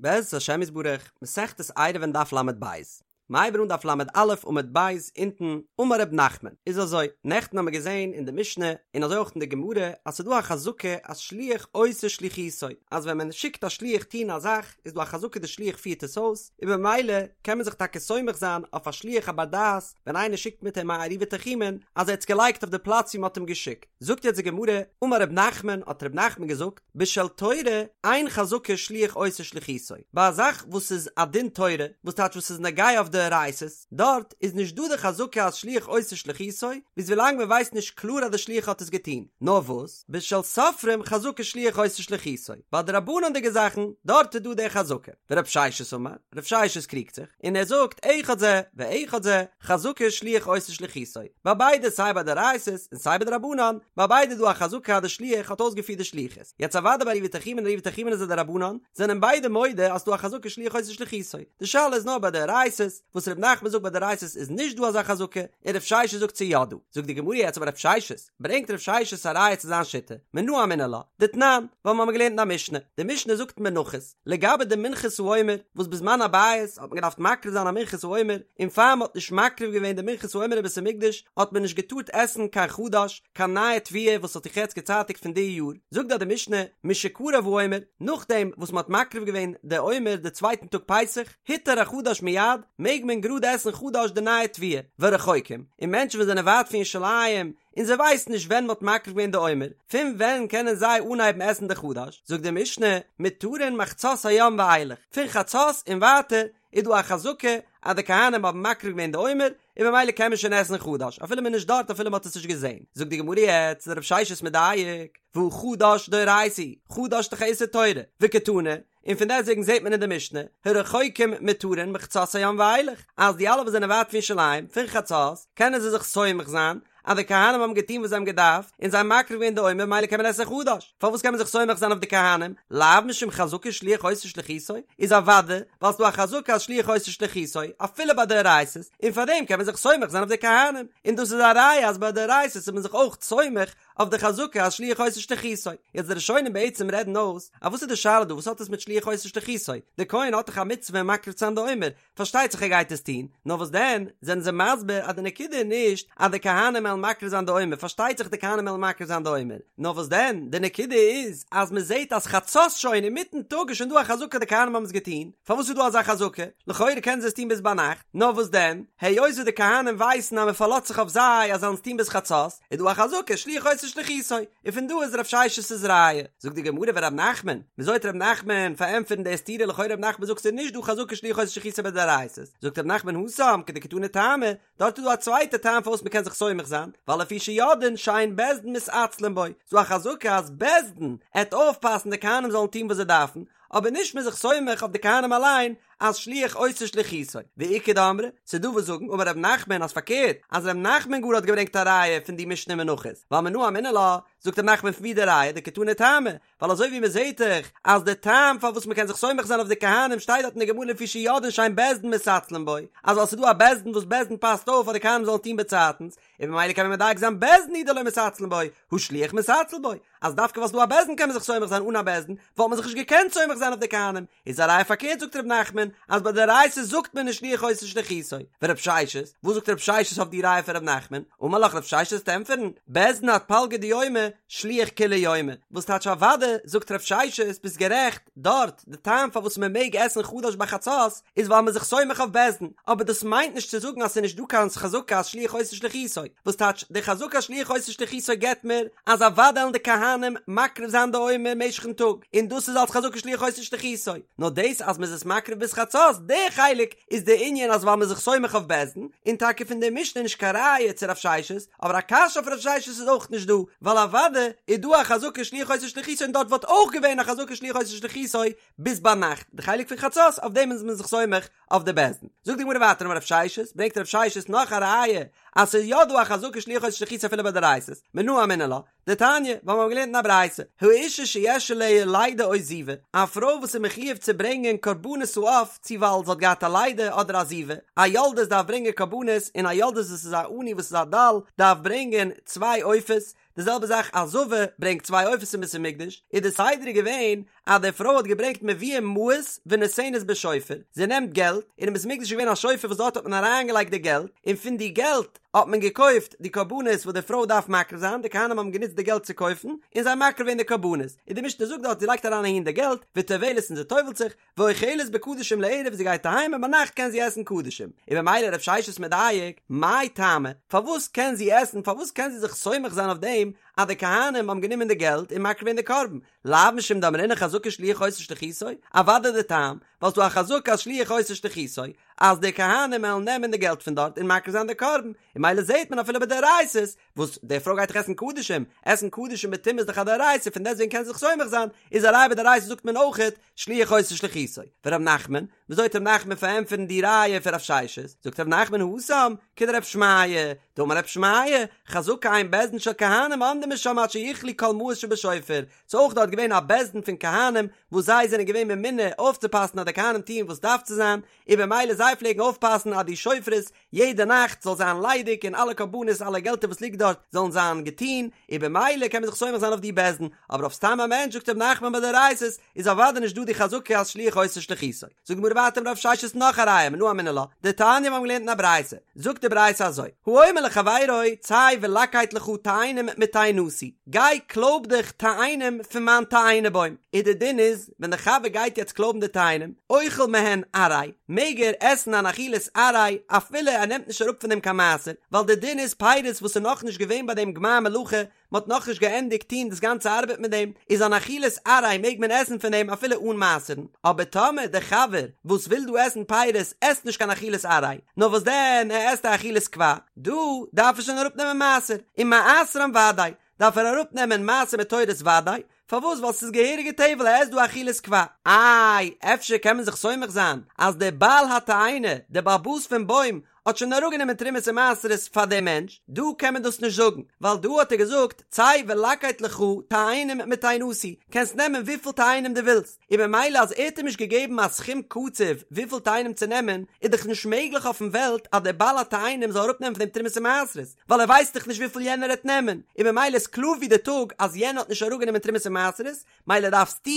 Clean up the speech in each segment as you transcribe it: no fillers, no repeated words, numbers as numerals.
בעזרת השם יתברך, מסכת עירובין דף ל"ב. מ'הייבט אן דף ל"א עמוד ב' אונטן, אמר ר' נחמן, איז אזוי, נעכטן האמיר געזען אין די משנה, און אזוי אויך אין די גמרא, אז ס'איז דא א חזקה אז שליח עושה שליחותו, אז ווען מען שיקט א שליח טון א זאך, איז דא א חזקה די שליח פירט עס אויס, און במילא קען מען זיך טאקע סומך זיין אויף א שליח א בר דעת, ווען איינער שיקט מיט אים א עירובי תחומין, אז ער האט עס געלייגט אויף די פלאץ ווי מ'האט אים געשיקט. זאגט יעצט די גמרא, אמר ר' נחמן, האט ר' נחמן געזאגט, בשל תורה אין חזקה שליח עושה שליחותו, ביי א זאך וואס איז א דין תורה, וואס טייטש וואס איז נוגע אויף דאורייתא'ס, דארט איז נישט דא די חזקה אז שליח עושה שליחותו, ביז ווילאנג מען ווייסט נישט קלאר אז די שליח האט עס געטון, נאר וואס, בשל סופרים חזקה שליח עושה שליחותו, ביי דרבנן'דיגע זאכן, דארט איז דא די חזקה. ורב ששת אמר, רב ששת קריגט זיך, און ער זאגט, אחד זה ואחד זה, חזקה שליח עושה שליחותו, ביי ביידע סיי ביי דאורייתא'ס און סיי ביי דרבנן, ביי ביידע איז דא א חזקה אז די שליח האט אויסגעפירט די שליחות, יעצט אוודאי ביי עירובי תחומין און עירובי תחומין איז א דרבנן, זענען ביידע מודה אז ס'דא א חזקה שליח עושה שליחותו, די שאלה איז נאר ביי דאורייתא'ס, וואס ר' נחמן זאגט ביי דאורייתא'ס איז נישט דא אזא חזקה, און רב ששת זאגט ס'איז יא דא, זאגט די גמרא יעצט אמר רב ששת, ברענגט רב ששת א ראיה צו זיין שיטה, מנא אמינא לה, דתנן, ווייל מ'האמיר געלערנט אין א משנה, די משנה זאגט מנחות, לגבי די מנחת העומר, וואס בזמן הבית האט מען געדארפט מקריב זיין א מנחת העומר, און פאר מען האט נישט מקריב געווען די מנחת העומר אין בית המקדש, האט מען נישט געטארט עסן קיין חדש, קיין נייע תבואה וואס האט זיך יעצט געצייטיגט פון די יאר, זאגט דארט די משנה, משקרב העומר, נאכדעם וואס מען האט מקריב געווען די עומר די צווייטן טאג פסח, הותר החדש מיד, מעג מען גראד עסן חדש די נייע תבואה, ורחוקים, און מענטשן וואס זענען ווייט פון ירושלים, און זיי ווייסן נישט ווען מ'האט מקריב געווען די עומר, פון ווען קענען זיי אנהייבן עסן די חדש? זאגט די משנה, מותרין מחצות היום ואילך, פון חצות און ווייטער איז דא א חזקה אז די כהנים האבן מקריב געווען די עומר, און ממילא קען מען שוין עסן חדש, אפילו מ'איז נישט דארט אפילו מ'האט עס נישט געזען. זאגט די גמרא יעצט איז רב ששת מדייק, והא חדש דאורייתא, חדש איז דאך א איסור תורה, וקתני, און פון דעסטוועגן זעט מען אין די משנה, הרחוקים מותרין מחצות היום ואילך, אז די אלע וואס זענען ווייט פון ירושלים, פון חצות, קענען זיי זיך סומך זיין, אז די כהנים האבן געטון וואס זיי האבן געדארפט, און זיי האבן מקריב געווען די עומר ממילא קען מען עסן חדש. פארוואס קען מען זיך סומך זיין אויף די כהנים? לאו משום חזקה שליח עושה שליחותו, איז אוודאי, ווייל ס'דא א חזקה אז שליח עושה שליחותו, אפילו ביי דאורייתא'ס, און פארדעם קען מען זיך סומך זיין אויף די כהנים, און דאס איז א ראיה אז ביי דאורייתא'ס איז מען זיך אויך סומך אויף די חזקה אז שליח עושה שליחותו. יעצט די ראשונים בעצם רעדן אויס, אז וואס איז די שאלה דא, וואס האט עס מיט שליח עושה שליחותו? די כהן האט דאך א מצוה מקריב צו זיין די עומר, פארשטייט זיך ער גייט עס טון, נאר וואס דען, זענען זיי מסביר אז די נקודה איז נישט אז די כהנים וועלן מקריב זיין די עומר, פארשטייט זיך די כהנים וועלן מקריב זיין די עומר, נאר וואס דען, די נקודה איז אז מען זעט אז חצות שוין אינמיטן טאג איז שוין דא א חזקה די כהנים האבן עס געטון, פארוואס איז דא אזא חזקה? לכאורה קענען זיי עס טון ביז ביינאכט, נאר וואס דען, היות וואס די כהנים ווייסן אז מען פארלאזט זיך אויף זיי אז זיי וועלן עס טון ביז חצות, איז דא א חזקה שליח עושה שליחותו, און פון דא איז רב ששת'ס ראיה. זאגט די גמרא ורב נחמן, וויאזוי וועט רב נחמן פארענטפערן די סתירה לכאורה רב נחמן זאגט ס'איז נישט דא חזקה שליח עושה שליחותו ביי דאורייתא'ס, זאגט רב נחמן התם כדקתני טעמא, דארט איז דא א צווייטע טעם פארוואס מ'קען זיך סומך זיין, ווייל לפי שיודעין שאין בית דין מתעצלין בו, ס'דא א חזקה אז בית דין עט אויפפאסן די כהנים זאלן טון וואס זיי דארפן, אבער נישט מ'איז זיך סומך אויף די כהנים אליין אז שליח עושה שליחותו, ואיכא דאמרי, ס'דא וואס זאגן אמר רב נחמן אז פארקערט, אז רב נחמן גאר האט געברענגט א ראיה פון די משנה אין מנחות, ווייל מנא אמינא לה, זאגט רב נחמן פון ווי די ראיה, דקתני טעמא, ווייל אזוי ווי מ'זעט דאך אז די טעם פארוואס מ'קען זיך סומך זיין אויף די כהנים שטייט דארט אין די גמרא לפי שיודעין שאין בית דין מתעצלין בו, אז ווייל ס'דא א בית דין וואס בית דין פאסט אויף אז די כהנים זאלן טון באצייטנס, און ממילא קען מען מדייק זיין בית דין הוא דלא מתעצלין בו, הא שליח מתעצל בו, אז דווקא ווייל ס'דא א בית דין קען מען זיך סומך זיין אן א בית דין וואלט מען זיך נישט געקענט סומך זיין אויף די כהנים, איז א ראיה פארקערט זאגט ר' נחמן אז ביי דאורייתא זאגט מען נישט שליח עושה שליחותו, ורב ששת, וואס זאגט רב ששת אויף די ראיה פון ר' נחמן? אמר לך רב ששת וועט ענטפערן, בית דין עד פלגא דיומא, שליח כולי יומא, וואס טייטש אוודאי זאגט רב ששת ביסט גערעכט, דארט, די טעם פארוואס מען מעג עסן חדש ביי חצות איז ווייל מען איז זיך סומך אויף בית דין, אבער דאס מיינט נישט צו זאגן אז ס'איז נישט דא קיין חזקה אז שליח עושה שליחותו, וואס טייטש די חזקה אז שליח עושה שליחותו געבט מיר אז אוודאי וועלן די כהנים מקריב זיין די עומר משך'ן טאג, און דאס איז אלס חזקה שליח עושה שליחותו, נאר דאס אז מען איז עס מקריב ביז חצות, די חלק איז די ענין אז ווייל מען איז זיך סומך אויף בית דין, און טאקע פון די משנה נישט קיין ראיה צו רב ששת, אבער א קשיא אויף רב ששת איז אויך נישט דא, ווייל אוודאי איז דא א חזקה שליח עושה שליחותו און דארט וואלט אויך געווען א חזקה שליח עושה שליחותו ביז ביינאכט, די חלק פון חצות אויף דעם איז מען זיך סומך אויף די בית דין. זאגט די גמרא ווייטער אמר רב ששת, ברענגט רב ששת נאך א ראיה אז ס'איז יא דא א חזקה שליח עושה שליחותו אפילו ביי דאורייתא'ס, מנא אמינא לה, דתניא, ווייל מיר האבן געלערנט אין א ברייתא, האשה שיש עליה לידה או זיבה, א פרוי וואס איז מחיוב צו ברענגען קרבנות העוף, צו ווייל זי האט געהאט א לידה אדער א זיבה, א יולדת דארף ברענגען קרבנות, און א יולדת וואס איז א עני וואס איז א דל, דארף ברענגען צוויי עופות, די זעלבע זאך א זבה ברענגט צוויי עופות אין בית המקדש, איז די סדר געווען. אז די פרוי האט געברענגט מביאה מעות ונותנת בשופר, זי נעמט געלט, און אין בית המקדש איז געווען א שופר וואס דארט האט מען אריינגעלייגט די געלט, און פון די געלט האט מען געקויפט די קרבנות וואס די פרוי דארף מקריב זיין, די כהנים האבן גענוצט די געלט צו קויפן, און זיי מקריב געווען די קרבנות, און די משנה זאגט דארט זי לייגט אריין אהין די געלט, וטובלת און זי טובל'ט זיך, ואוכלת בקדשים לערב זי גייט אהיים און ביינאכט קען זי עסן קדשים, און במילא רב ששת מדייק, מאי טעמא, פארוואס קען זי עסן, פארוואס קען זי זיך סומך זיין אויף דעם אז די כהנים האבן גענומען די געלט און מקריב געווען די קרבן, לאו משום דאמרינן חזקה שליח עושה שליחותו, אוודאי די טעם, ווייל ס'דא א חזקה אז שליח עושה שליחותו, אז די כהנים וועלן נעמען די געלט פון דארט און מקריב זיין די קרבן, און במילא זעט מען אפילו בדאורייתא'ס, וואס די פרוי גייט דאך עסן קדשים, עסן קדשים בטומאה איז דאך א דאורייתא פון דעסטוועגן קען זי זיך סומך זיין, איז א ראיה בדאורייתא זאגט מען אויכעט שליח עושה שליחותו. ורב נחמן, וויאזוי וועט רב נחמן פארענטפערן די ראיה פון רב ששת? זאגט רב נחמן התם, כדרב שמעיה, דאמר רב שמעיה, חזקה אין בית דין של כהנים עומדים משם עד שיכלו כל מעות שבשופר, ס'איז אויך דארט געווען א בית דין פון כהנים וואס זיי זענען געווען ממונה אויפצופאסן אז די כהנים טוען וואס דארף צו זיין, און במילא זיי פלעגן אויפפאסן אז די שופרות יעדע נאכט זאל זיין ליידיג און אלע קרבנות אלע געלטער וואס ליגט דארט זאלן זיין געטון, און במילא קען מען זיך סומך זיין אויף די בית דין, אבער אויף סתם א מענטש זאגט רב נחמן ביי דאורייתא'ס איז אוודאי נישט דא די חזקה אז שליח עושה שליחותו. זאגט די גמרא ווייטער אמר רב ששת נאך א ראיה מנא אמינא לה, דתניא מיר האבן געלערנט אין א ברייתא, זאגט די ברייתא אזוי, האומר לחבירו צא ולקט לך תאנים מתאנתי, גיי קלויב דיך תאנים פון מיין תאנה בוים, און די דין איז ווען די חבר גייט יעצט קלויבן די תאנים, אוכל מהן עראי, מעג ער עסן אן אכילת עראי אפילו ער נעמט נישט אראפ פון דעם קיין מעשר, ווייל די דין איז פירות וואס איז נאכנישט געווען ביי דעם גמר מלאכה, מען האט נאכנישט געענדיגט טון דאס גאנצע ארבעט מיט דעם, איז אן אכילת עראי מעג מען עסן פון דעם אפילו אן מעשר'ן, אבער טאמער דער חבר וואס וויל דא עסן פירות עסט נישט קיין אכילת עראי, נאר וואס דען ער עסט א אכילת קבע, דא דארף ער שוין אראפנעמען מעשר, ומעשרן ודאי, דארף ער אראפנעמען מעשר מתורת ודאי, פארוואס ווייל ס'איז געהעריגע טבל ער עסט דא אכילת קבע. איי אפשר קען מען זיך סומך זיין אז דער בעל התאנה, דער בעל הבית פון בוים, האט שוין אראפגענומען תרומות און מעשרות פאר דעם מענטש, דא קען מען דאס נישט זאגן, ווייל דא האט ער געזאגט צא ולקט לך תאנים מתאנתי, קענסט נעמען וויפיל תאנים דו ווילסט, און במילא אז ער האט אים נישט געגעבן א סכום קצוב וויפיל תאנים צו נעמען, איז דאך נישט מעגליך אויפן וועלט אז דער בעל התאנים זאל אראפנעמען פון דעם תרומות און מעשרות, ווייל ער ווייסט דאך נישט וויפיל יענער העט נעמען, און במילא איז קלאר ווי די טאג אז יענער האט נישט אראפגענומען תרומות און מעשרות, מילא דארפסטו,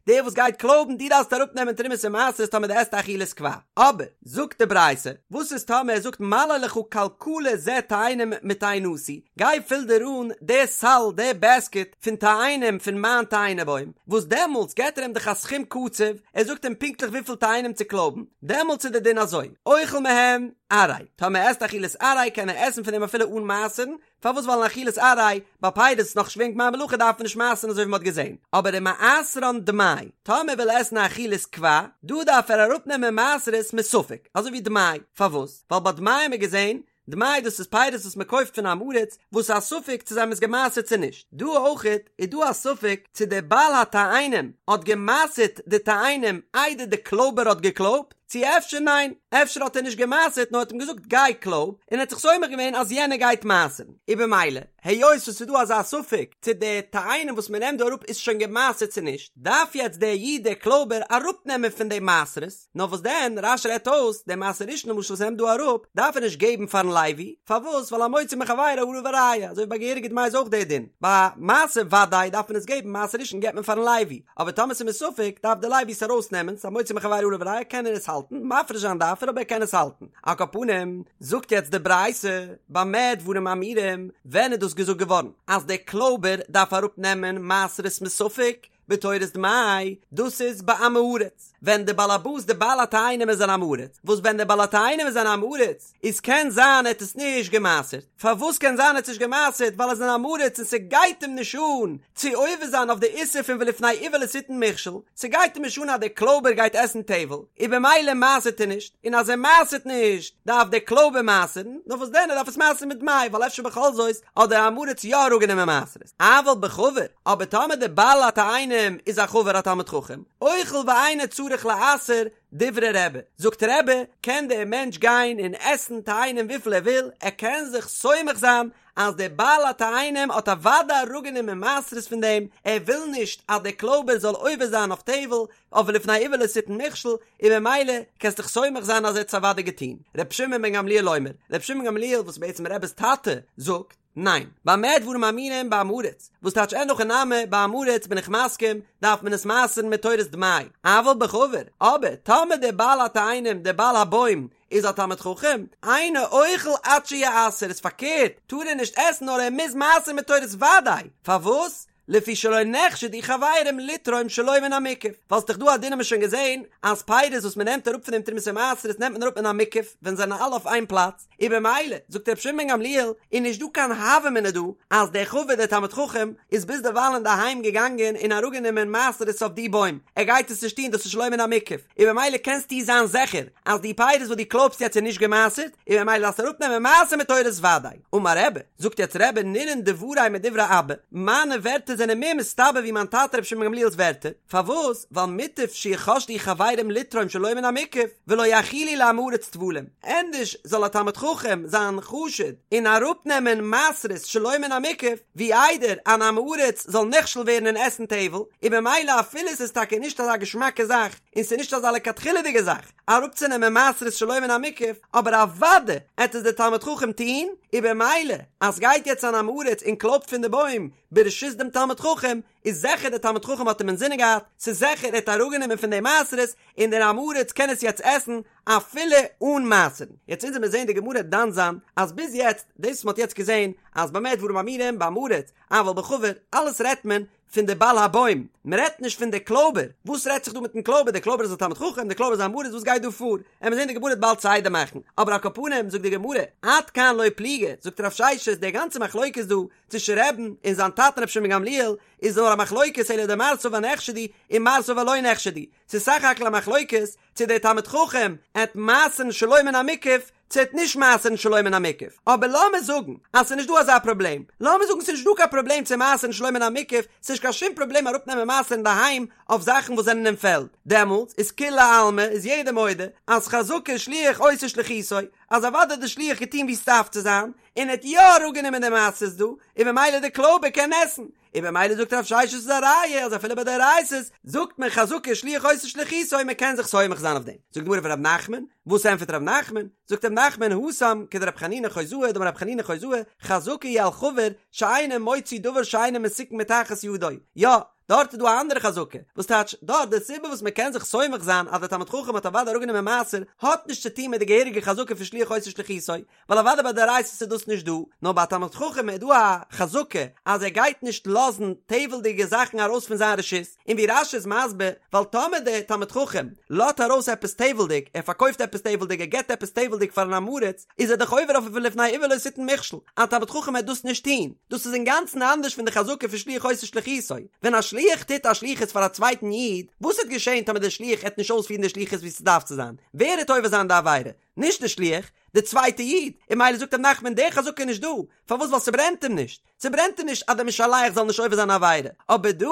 דער וואס גייט קלויבן, דו דארפסט אראפנעמען תרומות און מעשרות טאמער דו עסט אכילת קבע. אבער, זאגט די ברייתא, וואס איז טאמער ער זאגט מלא לך כלכלה זה תאנים מתאנתי, גיי פיל דיר אן די סל, די בעסקעט, פון תאנים פון מיין תאנה בוים, וואס דעמאלטס געט ער אים דאך א סכום קצוב, ער זאגט אים פונקטליך וויפיל תאנים צו קלויבן, דעמאלטס איז די דין אזוי, אוכל מהם עראי, טאמער ער עסט אכילת עראי קען ער עסן פון דעם אפילו אן מעשר'ן, פארוואס ווייל אן אכילת עראי ביי פירות איז נאך נישט געווען גמר מלאכה דארף מען נישט מעשר'ן אזוי ווי מ'האט געזען, אבער ומעשרן דמאי, טאמער וויל ער עסן א אכילת קבע, דא דארף ער אראפנעמען מעשרות מספק, אזוי ווי דמאי, פארוואס? ווייל ביי דמאי האמיר געזען, דמאי דאס איז פירות וואס מ'קויפט פון עם הארץ, וואס איז א ספק צו זיי האבן עס געמעשר'ט צו נישט, דא אויכעט איז דא א ספק צו דער בעל התאנים האט געמעשר'ט די תאנים איידער די קלויבער האט געקלויבט, צו אפשר ניין, אפשר האט ער נישט גע'מעשר'ט נאר האט אים געזאגט גיי קלויב, און ער האט זיך סומך געווען אז יענער גייט מעשר'ן. און במילא, היות וואס ס'איז דא אזא ספק צו די תאנים וואס מ'נעמט דא אראפ איז שוין גע'מעשר'ט צו נישט, דארף יעצט דער איד דער קלויבער אראפנעמען פון די מעשרות, נאר וואס דען, רש"י רעדט אויס, דער מעשר ראשון למשל וואס ער נעמט דא אראפ, דארף ער נישט געבן פארן לוי, פארוואס? ווייל המוציא מחבירו עליו הראיה, אזוי ווי ביי געהעריגע דמאי איז אויך דער דין, ביי מעשר ודאי דארף מען עס געבן, מעשר ראשון געבט מען פארן לוי. אבער טאמער ס'איז מספק, דארף דער לוי עס ארויסנעמען, ס'איז המוציא מחבירו עליו הראיה, קען ער עס האלטן, מפריש זיין דארף ער אבער ער קען עס האלטן. על כל פנים, זאגט יעצט די ברייתא, במה דברים אמורים, ווען איז דאס געזאגט געווארן אז דער קלויבער דארף אראפנעמען מעשרות מספק בתורת דמאי, דאס איז בעם הארץ, ווען דער בעל הבית דער בעל התאנים איז אן עם הארץ, וואס ווען דער בעל התאנים איז אן עם הארץ, איז קען זיין ער האט עס נישט גע'מעשר'ט, פארוואס קען זיין ער האט עס נישט גע'מעשר'ט ווייל ער איז אן עם הארץ און ס'גייט אים נישט אן צו עובר זיין אויף די איסור פון ולפני עור לא תתן מכשול, ס'גייט אים נישט אן אז דער קלויבער גייט עסן טבל, און במילא מעשר'ט ער נישט, און אז ער מעשר'ט נישט דארף דער קלויבער מעשר'ן, נאר וואס דען ער דארף עס מעשר'ן מיט דמאי ווייל אפשר בכל זאת האט דער עם הארץ יא אראפגענומען מעשרות, אבל בחבר, אבער טאמער דער בעל התאנים איז א חבר א תלמיד חכם, אוכל ואינו צריך לעשר, דברי רבי, זאגט רבי, קען דער מענטש גיין און עסן תאנים וויפיל ער וויל, ער קען זיך סומך זיין אז דער בעל התאנים האט אוודאי אראפגענומען מעשרות פון דעם, ער וויל נישט אז דער קלויבער זאל עובר זיין אויף טבל, אויף ולפני עור לא תתן מכשול, און ממילא קענסט דיך סומך זיין אז ער האט עס אוודאי געטון. ר' שמעון בן גמליאל אומר, ר' שמעון בן גמליאל וואס איז בעצם רבי'ס טאטע, זאגט. ניין, במה דברים אמורים בעם הארץ, וואס טייטש אין הכי נמי בעם הארץ בין איך מסכים, דארף מען עס מעשר'ן מתורת דמאי, אבל בחבר, אבער טאמער דער בעל התאנים, דער בעל הבוים, איז א תלמיד חכם, אינו אוכל עד שיעשר, איז פארקערט, טאר ער נישט עסן נאר ער מוז מעשר'ן מתורת ודאי, פארוואס? לפי שלא נחשדו חברים לתרום שלא מן המוקף, ווייל ס'דאך דא א דין האט מען שוין געזען אז פירות וואס מ'נעמט אראפ פון דעם תרומות ומעשרות נעמט מען אראפ מן המוקף ווען זיי זענען אלע אויף איין פלאץ, און במילא, זאגט רבי שמעון בן גמליאל, איז נישט דא קיין הוה אמינא דא אז דער חבר דער תלמיד חכם איז ביזדערווייל אינדערהיים געגאנגען און אראפגענומען מעשרות אויף די בוים, ער גייט עס נישט טון דאס איז שלא מן המוקף, און במילא קענסטו זיין זיכער אז די פירות וואס דו קלויבסט יעצט איז נישט געמעשרט, און במילא דארפסטו אראפנעמען מעשר מתורת ודאי. אמר רבי, זאגט יעצט רבי נראין דברי מדברי אבא, מיינע ווערטער זענען מער מסתבר ווי מיין טאטע רבי שמעון בן גמליאל'ס ווערטער, פארוואס? ווייל מוטב שיחשדו חברים לתרום שלא מן המוקף, ולא יאכילו לעם הארץ טבלים, ענדערש זאל א תלמיד חכם זיין חשוד און אראפנעמען מעשרות שלא מן המוקף, ווי איידער אן עם הארץ זאל נכשל ווערן אין עסן טבל, און במילא אפילו ס'איז טאקע נישט אזא געשמאקע זאך, און ס'איז נישט אזא לכתחילה'דיגע זאך אראפצונעמען מעשרות שלא מן המוקף, אבער אוודאי עט עס דער תלמיד חכם טוהן, און במילא אז גייט יעצט אן עם הארץ און קלויבט פון די בוים ברשות דעם תלמיד חכם, איז זיכער דער תלמיד חכם האט אים אינזינען געהאט, ס'איז זיכער ער האט אראפגענומען פון די מעשרות, און דער עם הארץ קען עס יעצט עסן אפילו אן מעשר'ן. יעצט אונז וועמיר זעהן די גמרא דן זיין אז ביז יעצט דאס וואס מ'האט יעצט געזעהן אז במה דברים אמורים בעם הארץ אבל בחבר אלעס רעדט מען פון די בעל הבוים, מען רעדט נישט פון די קלויבער, וואס רעדט זיך דא מיטן קלויבער, די קלויבער איז א תלמיד חכם, די קלויבער איז א עם הארץ, וואס גייט דא פאר? עמיר זען די גמרא וועט באלד סדר מאכן, אבער על כל פנים זאגט די גמרא, עד כאן לא פליגי, זאגט רב ששת, די גאנצע מחלוקת דא צווישן רבי'ן און זיין טאטן רבי שמעון גמליאל, איז נאר א מחלוקת אלא דמר סבר נחשדו ומר סבר לא נחשדו, ס'איז סך הכל א מחלוקת צו דער תלמיד חכם עט מעשר'ן שלא מן המוקף צו עט נישט מעשר'ן שלא מן המוקף, אבער לאמיר זאגן אז ס'איז נישט דא אזא פראבלעם, לאמיר זאגן ס'איז נישט דא קיין פראבלעם צו מעשר'ן שלא מן המוקף, ס'איז נישט קיין שום פראבלעם אראפנעמען מעשר אינדערהיים אויף זאכן וואס זענען אין פעלד, דעמאלטס איז כולי עלמא איז יעדער מודה אז חזקה שליח עושה שליחותו, אז אוודאי האט די שליח געטון ווי ס'דארף צו זיין, און ער האט יא אראפגענומען די מעשרות דא, און במילא די קלויבער קען עסן, און במילא זאגט רב ששת ס'איז א ראיה אז אפילו ביי דאורייתא'ס זאגט מען חזקה שליח עושה שליחותו און מען קען זיך סומך זיין אויף דעם. זאגט די גמרא ורב נחמן, וואס ענטפערט רב נחמן? זאגט רב נחמן התם כדרב חנינא חוזאי דאמר רב חנינא חוזאי חזקה היא על חבר שאינו מוציא דבר שאינו מתוקן מתחת ידו, יא, דארט איז דא א אנדערע חזקה, וואס טייטש דארט די סיבה וואס מען קען זיך סומך זיין אז דער תלמיד חכם האט אוודאי אראפגענומען מעשר האט נישט צו טון מיט די געהעריגע חזקה פון שליח עושה שליחותו, ווייל אוודאי ביי דאורייתא'ס איז דאס נישט דא, נאר ביי א תלמיד חכם איז דא א חזקה אז ער גייט נישט לאזן טבל'דיגע זאכן ארויס פון זיין רשות, און ווי רש"י איז מסביר, ווייל טאמער דער תלמיד חכם לאזט ארויס עפעס טבל'דיג, ער פארקויפט עפעס טבל'דיג, ער געבט עפעס טבל'דיג פאר אן עם הארץ, איז ער דאך עובר אויף ולפני עור לא תתן מכשול, א תלמיד חכם וועט דאס נישט טון, דאס איז אינגאנצן אנדערש פון די חזקה פון שליח עושה שליחותו, ווען א שליח טוט א שליחות פאר א צווייטן איד, וואס וועט געשען טאמער דער שליח עט נישט אויספירן די שליחות ווי ס'דארף צו זיין, ווער עט עובר זיין די עבירה? נישט די שליח, די צווייטע איד, און ממילא זאגט ר' נחמן די חזקה איז נישט דא, פארוואס ווייל ס'ברענט אים נישט, ס'ברענט אים נישט אז דער משלח זאל נישט עובר זיין עבירה, אבער דא,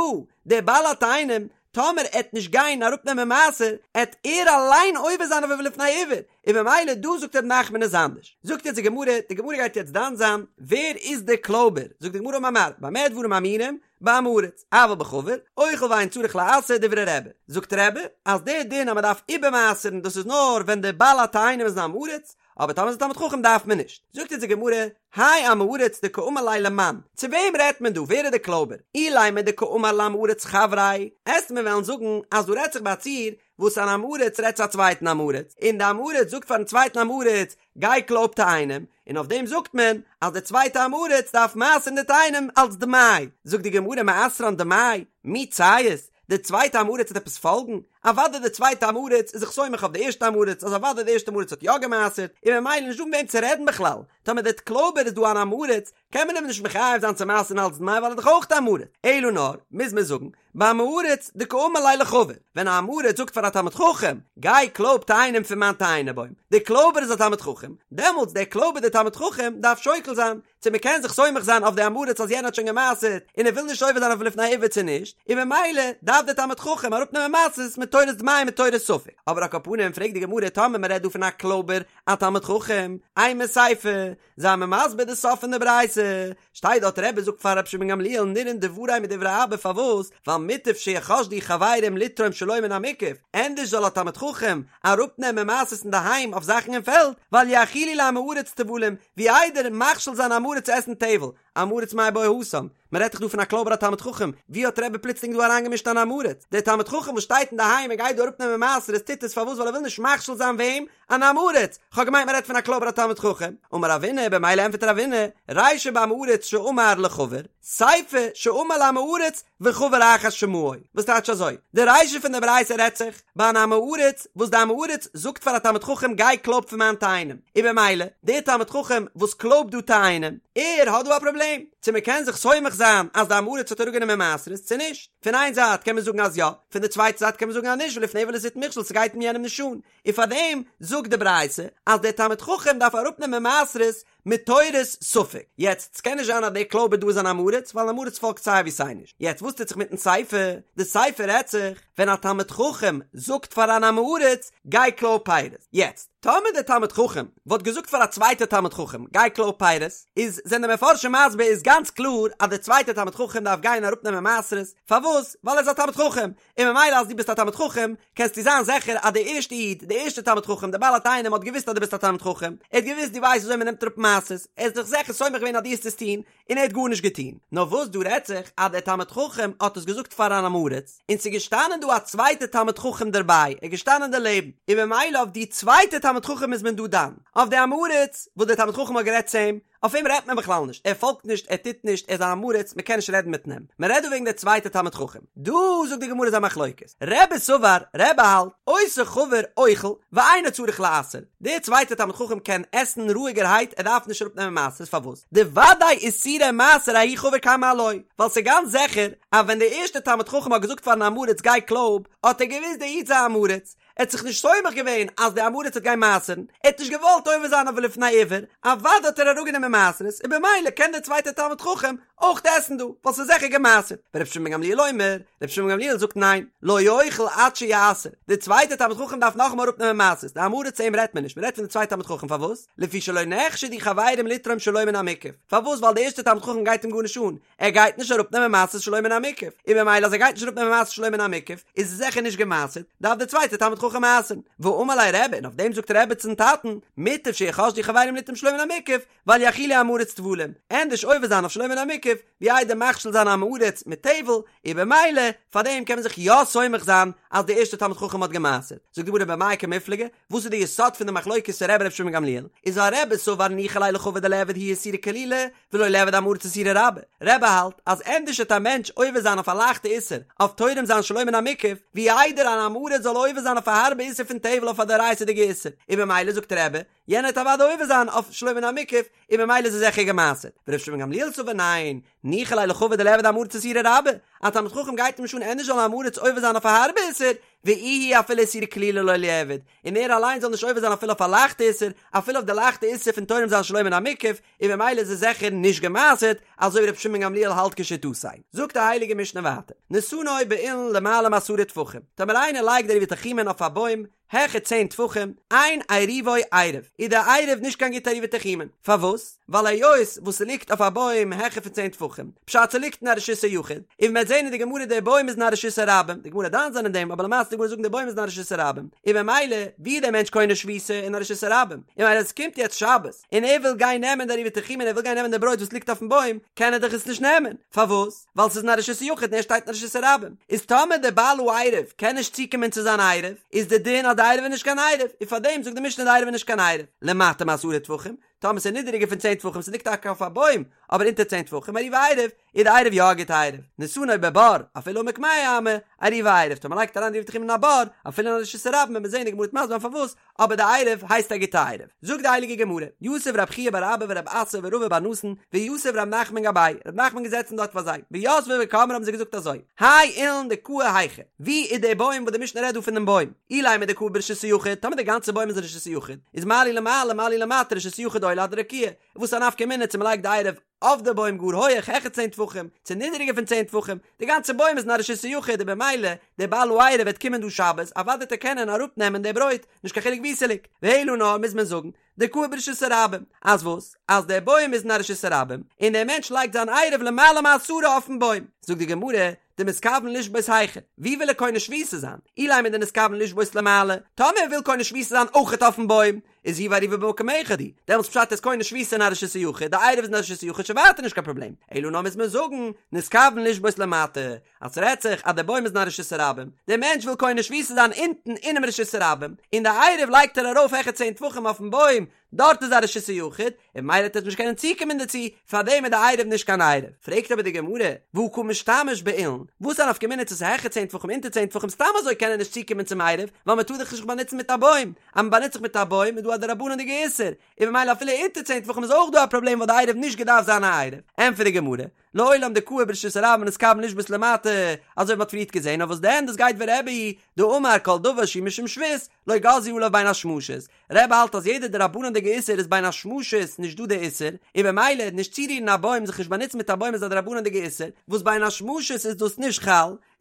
דער בעל התאנים, טאמער עט נישט גיין אראפ נעמען מעשר, עט ער אליין עובר זיין אויף ולפני עור, און ממילא דא זאגט ר' נחמן איז אנדערש. זאגט יעצט די גמרא, די גמרא גייט יעצט דן זיין, ווער איז דער קלויבער, זאגט די גמרא אמר מר, במה דברים אמורים, בעם הארץ, אבל בחבר, אוכל ואין צריך לעשר דברי רבי, זאגט רבי אז דער דין אז מען דארף איבערמעשר'ן דאס איז נאר ווען דער בעל התאנים איז אן עם הארץ, אבער טאמער איז א תלמיד חכם דארף מען נישט. זאגט אונז די גמרא, האי עם הארץ דקאמר ליה למאן, צו וועם רעדט מען דא, ווער איז דער קלויבער? אילימא דקאמר לעם הארץ חבריה, עסט מיר וועלן זאגן אז דא רעדט זיך ביי א ציור וואס אן עם הארץ רעדט צו א צווייטן עם הארץ, און די עם הארץ זאגט פארן צווייטן עם הארץ, גיי קלויב תאנים, און אויף דעם זאגט מען אז דער צווייטע עם הארץ דארף מעשר'ן די תאנים אלס דמאי, זאגט די גמרא מעשרן דמאי, מי ציית, די צווייטע עם הארץ וועט עפעס פאלגן? אוודאי די צווייטע עם הארץ איז זיך סומך אויף די ערשטע עם הארץ אז אוודאי די ערשטע עם הארץ האט יא געמעשר'ט, און ממילא נישט דא מיט וועם צו רעדן בכלל, טאמער דער קלויבער איז דא אן עם הארץ, קען מען אים נישט מחייב זיין צו מעשר'ן אלס דמאי ווייל ער איז דאך אויך עם הארץ, אלא נאר, מוז מען זאגן, בעם הארץ דקאמר ליה לחבר, ווען א עם הארץ זאגט פאר א תלמיד חכם, גיי קלויב תאנים פון מיין תאנה בוים, דער קלויבער איז א תלמיד חכם, דעמאלטס דער קלויבער דער תלמיד חכם דארף שוקל זיין, צו מען קען זיך סומך זיין אויף די עם הארץ אז יענער האט שוין גע'מעשר'ט און ער וויל נישט עובר זיין אויף לפני עור צו נישט, און ממילא דארף דער תלמיד חכם אראפנעמען מעשרות מתורת דמאי מתורת ספק. אבער על כל פנים פרעגט די גמרא טאמער מען רעדט דא פון א קלויבער א תלמיד חכם, אימא סיפא, זיי מיר מסביר די סוף פון די ברייתא. ברייתא, שטייט דארט רבי זאגט פאר רבי שמעון גמליאל נראין דברי מדברי אבא פארוואס? ווייל מוטב שיחשדו חברים לתרום שלא מן המוקף, ענדערש זאל א תלמיד חכם אראפנעמען מעשרות אינדערהיים אויף זאכן אין פעלד, ואל יאכילו לעמי הארץ טבלים, ווי איידער מכשיל זיין עם הארץ צו עסן טבל, עם הארץ מאי בעי התם? מען רעדט דאך דא פון א קלויבער א תלמיד חכם, ווי האט רבי פלוצלינג דא אריינגעמישט אן עם הארץ? דער תלמיד חכם וואס שטייט אינדערהיים און גייט דא אראפנעמען מעשרות טוט עס פארוואס ווייל ער וויל נישט מכשיל זיין וועם? אן עם הארץ! כ'האב געמיינט מען רעדט פון א קלויבער א תלמיד חכם. אמר רבינא, במילא ענטפערט רבינא, רישא בעם הארץ שאמר לחבר, סיפא שאמר לעם הארץ וחבר אחר שמעו. וואס טייטש אזוי? די רישא פון די ברייתא רעדט זיך ביי אן עם הארץ וואס די עם הארץ זאגט פאר א תלמיד חכם גיי קלויב פון מיין תאנים, און במילא דער תלמיד חכם וואס קלויבט דא תאנים, ער האט דא א פראבלעם, צו מען קען זיך סומך זיין אז די עם הארץ האט אראפגענומען מעשרות צו נישט. פון איין זייט קען מען זאגן אז יא, פון די צווייטע זייט קען מען זאגן אז נישט ולפני עור לא תתן מכשול ס'גייט אים יענעם נישט אן. און פאר דעם זאגט די ברייתא אז דער תלמיד חכם דארף אראפנעמען מעשרות מתורת ספק. יעצט, ס'קען נישט זיין אז דער קלויבער דא איז אן עם הארץ, ווייל אן עם הארץ פאלגט סיי ווי סיי נישט. יעצט וואס טוט זיך מיטן סיפא? די סיפא רעדט זיך ווען א תלמיד חכם זאגט פאר אן עם הארץ גיי קלויב פירות. יעצט, טאמער דער תלמיד חכם וואלט געזאגט פאר א צווייטע תלמיד חכם גיי קלויב פירות, איז זענען די מפרשים מסביר איז גאנץ קלאר אז דער צווייטער תלמיד חכם דארף גיין אראפנעמען מעשרות, פארוואס? ווייל ער איז א תלמיד חכם, און ממילא אז דו ביסט א תלמיד חכם, קענסטו זיין זיכער אז דער ערשטע איד, דער ערשטער תלמיד חכם, דער בעל התאנים האט געוואוסט אז דו ביסט א תלמיד חכם, ער האט געוואוסט דו ווייסט וויאזוי מען נעמט אראפ מעשרות, ער איז זיך זיכער סומך געווען אז דו וועסט עס טון, און ער האט גארנישט געטון. נאר וואס דא רעדט זיך אז דער תלמיד חכם האט עס געזאגט פאר אן עם הארץ, און ס'איז געשטאנען דא א צווייטער תלמיד חכם דערביי, ער איז געשטאנען דערלעבן, און ממילא אויף די צווייטע תלמיד חכם איז מען דא דן, אויף די עם הארץ וואס דער תלמיד חכם האט גערעדט צו אים, אויף אים רעדט מען בכלל נישט, ער פאלגט נישט, ער טוט נישט, ער איז א עם הארץ, מען קען נישט רעדן מיט אים, מען רעדט דא וועגן דער צווייטער תלמיד חכם. דא זאגט די גמרא איז א מחלוקת, רבי סבר, רבי האלט, אותו חבר אוכל ואינו צריך לעשר, דער צווייטער תלמיד חכם קען עסן רואיגערהייט ער דארף נישט אראפנעמען מעשרות, פארוואס? דודאי איתורי מעשר ההוא חבר קמא עילויה, ווייל ס'איז גאנץ זיכער אז ווען דער ערשטער תלמיד חכם האט געזאגט פארן עם הארץ גיי קלויב, האט ער געוואוסט דער איד איז א עם הארץ, ער האט זיך נישט סומך געווען אז די עם הארץ וועט גיין מעשר'ן, ער האט נישט געוואלט עובר זיין אויף ולפני עיוור, אוודאי האט ער אראפגענומען מעשרות, און במילא קען דער צווייטער תלמיד חכם אויך עסן דא, ווייל ס'איז זיכער גע'מעשר'ט. ור' שמעון בן גמליאל אומר, ר' שמעון בן גמליאל זאגט ניין, לא יאכל עד שיעשר, דער צווייטער תלמיד חכם דארף נאכאמאל אראפנעמען מעשרות, די עם הארץ צו אים רעדט מען נישט, מען רעדט פון די צווייטע תלמיד חכם, פארוואס? לפי שלא נחשדו חברים לתרום שלא מן המוקף, פארוואס? ווייל דער ערשטער תלמיד חכם גייט אים גארנישט אן, ער גייט נישט אראפ נעמען מעשרות שלא מן המוקף, און במילא אז ער גייט נישט אראפ נעמען מעשרות שלא מן המוקף, איז עס זיכער נישט גע'מעשר'ט, דארף דער צווייטער תלמיד חכם מעשר'ן. ואמר ליה רבי, און אויף דעם זאגט רבי צום טאטן, מוטב שיחשדו חברים לתרום שלא מן המוקף, ואל יאכילו עם הארץ טבלים, ענדערש עובר זיין אויף שלא מן המוקף, ווי איידער מכשיל זיין עם הארץ מיט טבל, און במילא, פאר דעם קען מען זיך יא סומך זיין אז דער ערשטער תלמיד חכם האט גע'מעשר'ט. זאגט די גמרא במאי קמיפלגי, וואס איז די יסוד פון די מחלוקת פון רבי ר' שמעון גמליאל? איז ווייל רבי סבר ניחא ליה לחבר דליעביד הוא איסורא קלילא, ולא ליעביד עם הארץ איסורא רבה. רבי האלט אז ענדערש וועט א מענטש עובר זיין אויף א לייכטע איסור, אויף תורם זיין שלא מן המוקף, ווי איידער אן עם הארץ זאל עובר זיין אויף א הארבע איסור פון טבל אויף א דאורייתא'דיגע איסור, און במילא זאגט רבי, יענער וועט אוודאי עובר זיין אויף שלא מן המוקף, און במילא איז עס זיכער גע'מעשר'ט. ור' שמעון גמליאל סבר ניין, ניחא ליה לחבר דליעביד עם הארץ איסורא רבה, א תלמיד חכם גייט אים נישט אן ענדערש זאל אן עם הארץ עובר זיין אויף א הארבע איסור, ואיהו אפילו איסורא קלילא לא ליעביד, און ער אליין זאל נישט עובר זיין אפילו אויף א לייכטע איסור, אפילו אויף די לייכטע איסור פון תורם זיין שלא מן המוקף, און במילא איז עס זיכער נישט גע'מעשר'ט, אזוי ווי רבי שמעון גמליאל האלט כשיטתו. זאגט די הייליגע משנה ווייטער, נתנו באילן למעלה מעשרה טפחים, טאמער איינער לייגט די עירובי תחומין אויף א בוים העכער צען טפחים, אין עירובו עירוב, איז די עירוב נישט קיין גוטע עירובי תחומין. פארוואס? ווייל היות וואס ס'ליגט אויף א בוים העכער פון צען טפחים, פשט ס'ליגט אין א רשות היחיד, און מ'וועט זען אין די גמרא די בוים איז אין א רשות הרבים, די גמרא דן זיין אין דעם, אבער למעשה די גמרא זאגן די בוים איז אין א רשות הרבים, און במילא ווי איז דער מענטש קונה שביתה אין א רשות הרבים, און ממילא עס קומט יעצט שבת, און ער וויל גיין נעמען די עירובי תחומין, ער וויל גיין נעמען די ברויט וואס ליגט אויפן בוים, קען ער דאך עס נישט נעמען, פארוואס? ווייל ס'איז אין א רשות היחיד און ער שטייט אין רשות הרבים, איז טאמער דער בעל העירוב קען נישט צוקומען צו זיין עירוב, איז די דין אז די עירוב איז נישט קיין עירוב, און פארדעם זאגט די משנה די עירוב איז נישט קיין עירוב, למטה מעשרה טפחים, טאמער ס'איז נידעריגער פון צען טפחים ס'ליגט טאקע אויף א בוים, אבער אונטער צען טפחים עירובו עירוב, איז די עירוב יא א גוטע עירוב, נתנו בבור, אפילו עמוק מאה אמה, עירובו עירוב, טאמער מ'לייגט אריין די עירובי תחומין אין א בור, אפילו אין א רשות הרבים וועט מען זען די גמרא וועט מסביר זיין פארוואס, אבער די עירוב הייסט א גוטע עירוב. זאגט די הייליגע גמרא, יתיב רב חייא בר אבא ורב אסי ורבא בר נתן, ויתיב רב נחמן גבייהו, רב נחמן געזעצן דארט פאר זיי, ויתבי וקאמרי האבן זיי געזאגט אזוי, האי אילן דקאי היכא, ווי איז די בוים וואס די משנה רעדט דא פון דעם בוים? אילימא דקאי ברשות היחיד, טאמער די גאנצע בוים איז אין רשות היחיד, איז מה לי למעלה מה לי למטה רשות היחיד עולה עד רקיע, וואס א נפקא מינה צו מ'לייגט די עירוב? אויף די בוים גאר הויעך העכער צען טפחים, צו נידעריגער פון צען טפחים, די גאנצע בוים איז אין א רשות היחיד און במילא דער בעל העירוב וועט קומען דא שבת אוודאי וועט ער קענען אראפ נעמען די ברויט, נישט קיין חילוק וואו ס'ליגט, ואלא נאר מוז מען זאגן דקאי ברשות הרבים, אז וואס? אז דער בוים איז אין א רשות הרבים, און דער מענטש לייגט זיין עירוב למעלה מעשרה אויפן בוים, זאגט די גמרא, דמתכוון לשבות היכא, ווי וויל ער קונה שביתה זיין? אילימא דנתכוון לשבות למעלה, טאמער ער וויל קונה שביתה זיין אויכעט אויפן בוים, איז הוא ועירובו במקום אחד הוא, דעמאלטס פשט איז קונה שביתה אין א רשות היחיד, די עירוב איז אין א רשות היחיד שוין ווייטער נישט קיין פראבלעם, אלא נאר מוז מען זאגן, נתכוון לשבות למטה, אז ס'רעדט זיך אז די בוים איז אין א רשות הרבים, דער מענטש וויל קונה שביתה זיין אונטן אינעם רשות הרבים, און די עירוב לייגט ער ארויף העכער צען טפחים אויפן בוים, דארט איז א רשות היחיד, און ממילא וועט ער נישט קענען צוקומען דערצו, פארדעם איז די עירוב נישט קיין עירוב. פרעגט אבער די גמרא, והא קא משתמש באילן, וואס א נפקא מינה צו ס'איז העכער צען טפחים אונטער צען טפחים סתם אזוי קען ער נישט צוקומען צום עירוב, ווייל מ'טאר זיך נישט באנוצן מיט א בוים, אז מ'באנוצט זיך מיט א בוים איז דא א דרבנן'דיגע איסור, און ממילא אפילו אונטער צען טפחים איז אויך דא א פראבלעם וואלט די עירוב נישט געדארפט זיין א עירוב. ענטפערט די גמרא, לעולם דקאי ברשות הרבים ונתכוון לשבות למטה, אזוי ווי מ'האט פריערט געזען, נאר וואס דען דאס גייט ווי רבי היא דאמר כל דבר שהוא משום שבות, לא גזרו עליו בין השמשות, רבי האלט אז יעדע דרבנן'דיגע איסור איז בין השמשות נישט דא די איסור, און במילא נישט צורירן א בוים זיך נישט באנוצן מיט א בוים איז א דרבנן'דיגע איסור, וואס בין השמשות איז דאס נישט חל,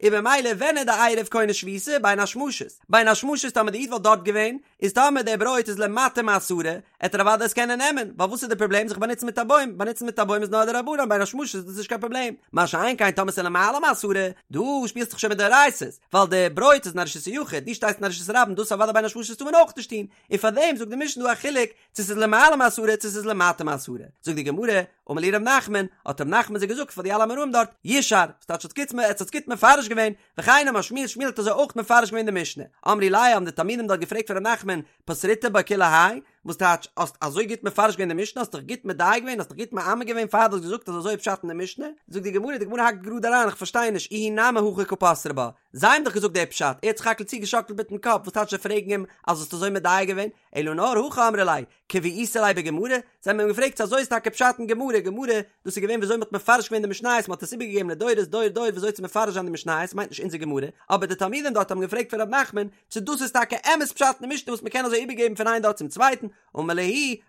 און במילא ווען איז די עירוב קונה שביתה? בין השמשות. בין השמשות טאמער די איד וואלט דארט געווען, איז טאמער די ברויט איז למטה מעשרה, עט ער אוודאי עס קענען נעמען, ווייל וואס איז די פראבלעם זיך באנוצן מיט א בוים? באנוצן מיט א בוים איז נאר א דרבנן, בין השמשות איז דאס נישט קיין פראבלעם. מה שאין כן טאמער ס'איז למעלה מעשרה, דא שפילסט זיך שוין מיט דאורייתא'ס, ווייל די ברויט איז אין א רשות היחיד, דו שטייסט אין א רשות הרבים, דאס אוודאי בין השמשות טאר מען אויך נישט טון, און פארדעם זאגט די משנה דא א חילוק צו ס'איז למעלה מעשרה צו ס'איז למטה מעשרה. זאגט די גמרא, אמר להו רב נחמן, האט רב נחמן זיי געזאגט פאר די אלע אמוראים דארט, יישר, ס'טייטש האטס גוט עטס האטס גוט מפרש געווען, וכן אמר שמואל, שמואל האט אזוי אויך מפרש געווען די משנה. אמרי ליה האבן די תלמידים דארט געפרעגט פון רב נחמן, פתריתו בה כולי האי, וואס טייטש, האסט אזוי גוט מפרש געווען די משנה, האסט דיך גוט מדייק געווען, האסט דיך גוט מעמיק געווען פאר דו האסט געזאגט אז אזוי איז פשט אין די משנה? זאגט די גמרא, די גמרא האקט גראד אריין, איך פארשטיי נישט, איהו נמי הכי קא פתרי בה, זיי האבן דאך געזאגט די פשט, ער האט סך הכל צוגעשאקלט מיטן קאפ, וואס טייטש זיי פרעגן אים אז האסט אזוי מדייק געווען? אלא נאר הכי אמרי ליה, כויתו ליה בגמרא, זיי האבן אים געפרעגט צו אזוי איז טאקע פשט אין גמרא, גמרא, דאס איז געווען וויאזוי מ'האט מפרש געווען די משניות, מ'האט עס איבערגעגעבן לדורות דור דור וויאזוי צו מפרש זיין די משניות, מיינט נישט אונזער גמרא, אבער די תלמידים דארט האבן געפרעגט פון ר' נחמן, צו דאס איז טאקע אמת פשט אין די משנה וואס מ'קען אזוי איבערגעבן פון איין דור צום צווייטן, אמר להו,